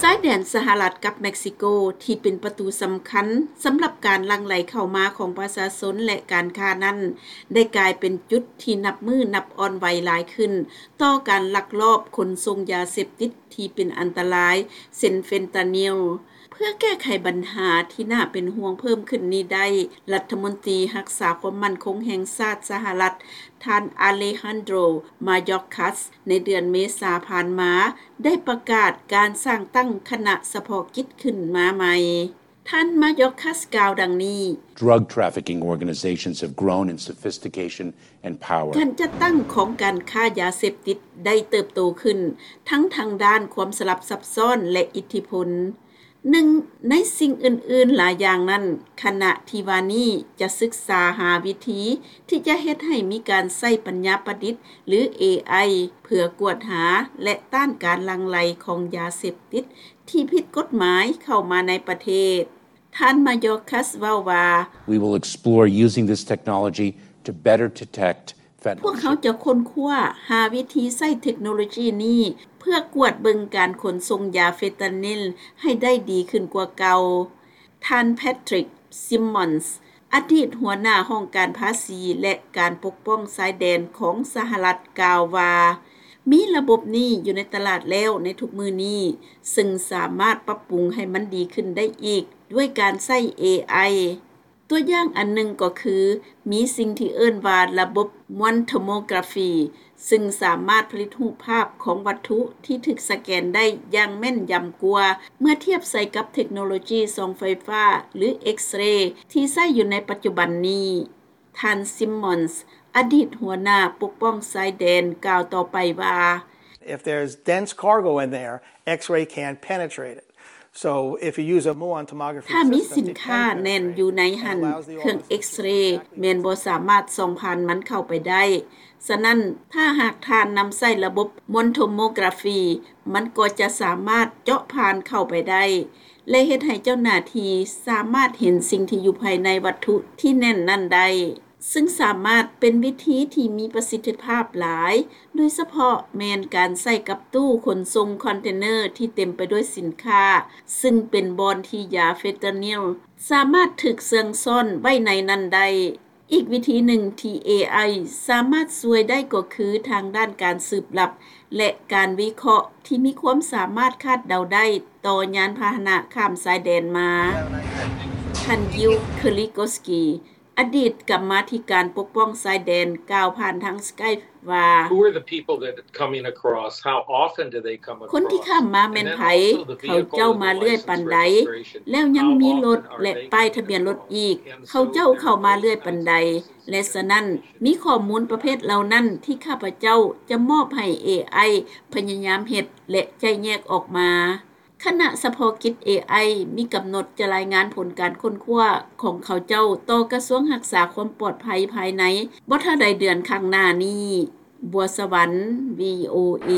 ຊາຍແດນສະຫະລັດກັບເມັກຊິໂກ ທີ່ເປັນປະຕູສຳຄັນສຳລັບການຫຼັ່ງໄຫຼເຂົ້າມາຂອງປະຊາຊົນ ແລະ ການຄ້ານັ້ນ ໄດ້ກາຍເປັນຈຸດທີ່ນັບມື້ນັບອ່ອນໄຫວຫຼາຍຂຶ້ນ ຕໍ່ການລັກລອບຂົນສົ່ງຢາເສບຕິດທີ່ເປັນອັນຕະລາຍ ເຊັ່ນເຟນຕານິລ. ເພື່ອແກ້ໄຂບັນຫາທີ່ໜ້າເປັນຫ່ວງເພີ່ມຂຶ້ນນີ້ໄດ້, ລັດຖະມົນຕີຮັກສາຄວາມໝັ້ນຄົງແຫ່ງຊາດສະຫະລັດ ທ່ານ ອາເລຮັນໂດຣ ມາຢອກຄັສ ໃນເດືອນເມສາຜ່ານມາ ໄດ້ປະກາດການສ້າງຕັ້ງຄະນະສະເພາະກິດຂຶ້ນມາໃໝ່. ທ່ານ ມາຢອກຄັສ ກ່າວດັ່ງນີ້, Drug trafficking organizations have grown in sophistication and power. ການຈັດຕັ້ງຂອງການຄ້າຢາເສບຕິດໄດ້ເຕີບໂຕຂຶ້ນ ທັງທາງດ້ານຄວາມສະຫຼັບຊັບຊ້ອນ ແລະ ອິດທິພົນ. ໜຶ່ງໃນສິ່ງອື່ນໆຫຼາຍຢ່າງນັ້ນ, ຄະນະທີ່ວ່ານີ້ຈະສຶກສາຫາວິທີທີ່ຈະເຮັດໃຫ້ມີການໃຊ້ປັນຍາປະດິດ ຫຼື ເອໄອ ເພື່ອກວດຫາ ແລະ ຕ້ານການຫຼັ່ງໄຫຼຂອງຢາເສບຕິດທີ່ຜິດກົດໝາຍເຂົ້າມາໃນປະເທດ. ທ່ານ ມາຢອກຄັສ ເວົ້າວ່າ, We will explore using this technology to better detect ພວກເຮົາຈະຄົ້ນຄວ້າຫາວິທີໃຊ້ເທັກໂນໂລຈີນີ້ ເພື່ອກວດເບິ່ງການຂົນສົ່ງຢາເຟນຕານິລໃຫ້ໄດ້ດີຂຶ້ນກວ່າເກົ່າ. ທ່ານ ແພັດທຣິກ ຊິມມອນສ ອະດີດຫົວໜ້າຫ້ອງການພາສີ ແລະ ການປົກປ້ອງຊາຍແດນຂອງສະຫະລັດ ກ່າວວ່າ, ມີລະບົບນີ້ຢູ່ໃນຕະຫຼາດແລ້ວໃນທຸກມື້ນີ້, ເຊິ່ງສາມາດປັບປຸງໃຫ້ມັນດີຂຶ້ນໄດ້ອີກດ້ວຍການໃຊ້ເອໄອ. ຕົວຢ່າງອັນໜຶ່ງກໍຄື ມີສິ່ງທີ່ເອີ້ນວ່າລະບົບ One Tomography ຊຶ່ງສາມາດຜະລິດຮູບພາບຂອງວັດຖຸທີ່ຖືກສະແກນໄດ້ຢ່າງແມ່ນຢຳກວ່າ ເມື່ອທຽບໃສ່ກັບເທັກໂນໂລຈີສ່ອງໄຟຟ້າ ຫຼື X-ray ທີ່ໃຊ້ຢູ່ໃນປັດຈຸບັນນີ້. ທ່ານ ຊິມມອນສ ອະດີດຫົວໜ້າປົກປ້ອງຊາຍແດນ ກ່າວຕໍ່ໄປວ່າ, If there's dense cargo in there, X-ray can't penetrate it. So if you use a muon tomography ຖ້າມີສິນຄ້າແໜ້ນຢູ່ໃນຫັ້ນ, ເຄື່ອງເອັກເຣແມ່ນບໍ່ສາມາດສ່ອງຜ່ານມັນເຂົ້າໄປໄດ້. ສະນັ້ນ, ຖ້າຫາກທ່ານນຳໃຊ້ລະບົບ Muon Tomography, ມັນກໍຈະສາມາດເຈາະຜ່ານເຂົ້າໄປໄດ້ ແລະ ເຮັດໃຫ້ເຈົ້າໜ້າທີ່ສາມາດເຫັນສິ່ງທີ່ຢູ່ພາຍໃນວັດຖຸທີ່ແໜ້ນນັ້ນໄດ້. ຊຶ່ງສາມາດເປັນວິທີທີ່ມີປະສິດທິພາບຫຼາຍ, ໂດຍສະເພາະແມ່ນການໃຊ້ກັບຕູ້ຂົນສົ່ງຄອນເທນເນີທີ່ເຕັມໄປດ້ວຍສິນຄ້າ, ຊຶ່ງເປັນບ່ອນທີ່ຢາເຟນຕານິລສາມາດຖືກເຊື່ອງຊ້ອນໄວ້ໃນນັ້ນໄດ້. ອີກວິທີໜຶ່ງທີ່ເອໄອສາມາດຊ່ວຍໄດ້ກໍຄືທາງດ້ານການສືບລັບ ແລະ ການວິເຄາະທີ່ມີຄວາມສາມາດຄາດເດົາໄດ້ຕໍ່ຍານພາຫະນະຂ້າມຊາຍແດນມາ. ທ່ານ Gil Kerlikowske ອະດີດກຳມາທິການປົກປ້ອງຊາຍແດນ ກ່າວຜ່ານທາງ Skype ວ່າ, Who are the people that coming across? How often do they come across? ຄົນທີ່ຂ້າມມາແມ່ນໃຜ? ເຂົາເຈົ້າມາເລື້ອຍປານໃດ? ແລ້ວຍັງມີລົດ ແລະ ປ້າຍທະບຽນລົດອີກ, ເຂົາເຈົ້າເຂົ້າມາເລື້ອຍປານໃດ? ແລະ ສະນັ້ນ, ມີຂໍ້ມູນປະເພດເຫຼົ່ານັ້ນທີ່ຂ້າພະເຈົ້າຈະມອບໃຫ້ເອໄອພະຍາຍາມເຮັດ ແລະ ໄຈ້ແຍກອອກມາ. ຄະນະສະເພາະກິດເອໄອມີກຳນົດຈະລາຍງານຜົນການຄົ້ນຄວ້າຂອງເຂົາເຈົ້າຕໍ່ກະຊວງຮັກສາຄວາມປອດໄພພາຍໃນບໍ່ຖ້າໃດເດືອນຂ້າງໜ້ານີ້. ບົວສະຫວັນ ວີໂອເອ.